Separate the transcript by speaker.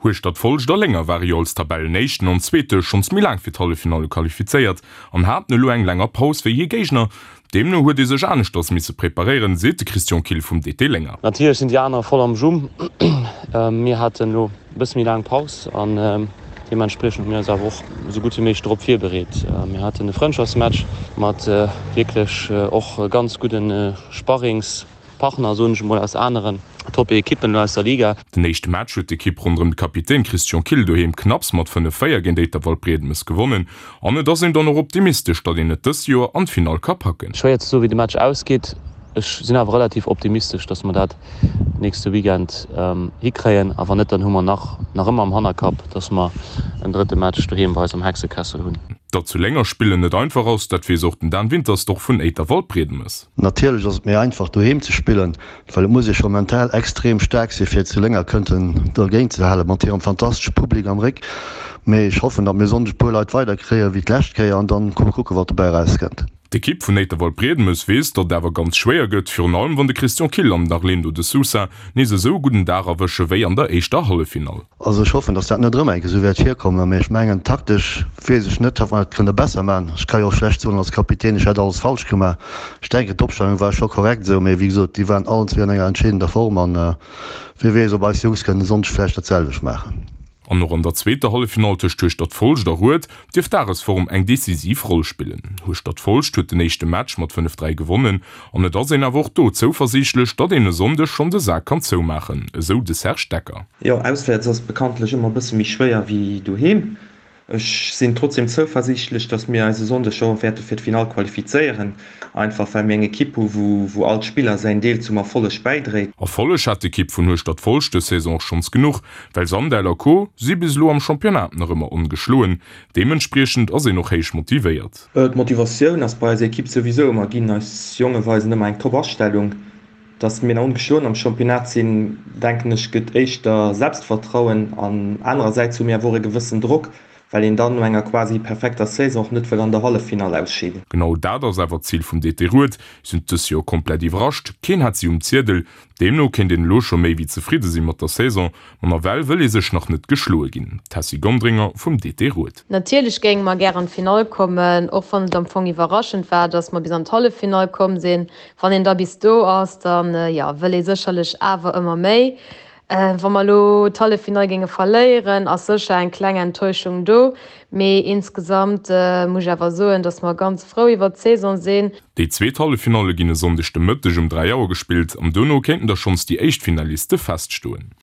Speaker 1: Hueschtert-Folscht a Lénger ware jo als Tabellenéischten an Zweete schonns méi laang fir d'Halleffinalle qualifizéiert an haten elo eng länger Paus wéi hir Géigner. Deemno huet ee sech aneschters misse preparéieren, seet de Christian Kill vum DT Lénger.
Speaker 2: Natierlech sinn déi aner voll am Jum. Mir haten elo e bësse méi laang Paus an deementspriechend hu mir eis awer och esou gutt wéi méiglech dorop virbereet. Mir haten e Frëndschaftsmatch mat wierklech och ganz gudde Sparrings. Partner, soen ech emol, aus aneren Top-Ekippen elo aus der Liga.
Speaker 1: Den éischte Match huet d'Ekipp ronderëm de Kapitän Christian Kill doheem knapps mat 5, 4 géint Éiter-Waldbriedemes gewonnen an et ass een dann och optimistesch, datt een et dëst Joer an d'Finall ka packen.
Speaker 2: Schwéier ze soen, wéi de Match ausgeet. Ech sinn awer relativ optimistesch, datt mer dat nächste Weekend hikréien. A wann net, dann hu mer nach nach ëmmer am Hannerkapp, datt mer en drëtte Match doheem bei eis am Hexekessel hunn.
Speaker 1: Datt zu Lénger spillen net einfach ass, dat weess och den Dan Wintersdorf vun Éiter-Waldbriedemes.
Speaker 3: Natierlech ass et méi einfach doheem ze spillen, well et muss ee scho mental extrem staark sinn, fir zu Lénger kënnten dergéint ze halen, mat hirem fantastesche Public am Réck. Mee ech hoffen, datt mir e Sonndeg e puer Leit weider kréien wéi d'lescht Kéier an dann kucke wat dobäi erauskënnt.
Speaker 1: D'Ekipp vun Éiterwald-Briedemes weess, datt et awer ganz schwéier gëtt, virun allem wann de Christian Kill an den Arlindo de Sousa nees esou e gudden Dag erwësche wéi an der éischter Halleffinall.
Speaker 3: Also ech hoffen, dass dat net erëm eng Kéier esou wäert virkommen, mee ech mengen taktesch weess ech net, ob mer dat kënne besser maachen. Ech ka jo och schlecht soen als Kapitän, ech hätt alles falsch gemaach. Ech denken d'Opstellung war scho korrekt esou, mee wéi gesot, déi waren allen zwee an enger entscheedender Form an wie weess, ob eis Jungs kënnen e Sonndeg vläicht dat selwecht maachen.
Speaker 1: An och an der zweeter Halleffinall tëscht Hueschtert-Folscht a Rued dierft d'Dagesform eng decisiv Roll spillen. Hueschtert-Folscht huet den éischte Match mat 5, 3 gewonnen an et ass een awer och do zouversiichtlech, datt een e Sonndeg schonn de Sak kann zoumaachen, esou de Serge Decker.
Speaker 4: Jo, auswäerts ass bekanntlech ëmmer e bësse méi schwéier wéi doheem. Ech sinn trotzdeem zouversiichtlech, dass mir eis e Sonndeg scho wäerte fir d'Finall qualifizéieren, einfach well mir eng Ekipp hu wou all Spiller säin Deel zum Erfolleg bäidréit.
Speaker 1: Erfolleg hat d'Ekipp vun Hueschtert-Folscht dës Saison och schonns genuch, well Sandel a Co. Si bis elo am Championnat nach ëmmer ongeschloen. Deementspriechend ass een och héich motivéiert.
Speaker 4: D'Motivatioun ass bei eiser Ekipp souwisou ëmmer ginn. Eis Jonge weisen ëmmer eng top Astellung. Dass mir nach ongeschloen am Championnat sinn, denken ech, gëtt éischter Selbstvertrauen an anerersäits hu mir awer och e gewëssen Drock, well een dann no enger quasi perfekter Saison och net wëll an der Halleffinall ausscheeden.
Speaker 1: Genau dat ass awer d'Zil vum DT Rued. Si hunn dës Joer komplett iwwerrascht, keen hat si um Ziedel. Deemno kéint een elo scho méi wéi zefridde si mat der Saison, ma nawell wëll ee sech nach net geschloe ginn. D'Tessy Gonderinger vum DT Rued.
Speaker 5: Natierlech géinge mer gär an d'Finall kommen, och wann et am Fong iwwerraschend war, dass mer bis an d'Halleffinall komm sinn. Wann een da bis do ass, dann jo wëll ee sécherlech awer ëmmer méi. Wa mer elo d'Halleffinall géinge verléieren, ass sécher eng kleng Enttäuschung do, mee insgesamt muss ech awer soen, dass mer ganz frou iwwert d'Saison sinn.
Speaker 1: Déi zweet Halleffinalle ginn e Sonndeg de Mëtteg um 3 Auer gespillt an dono kéinten da schonns déi éischt Finaliste feststoen.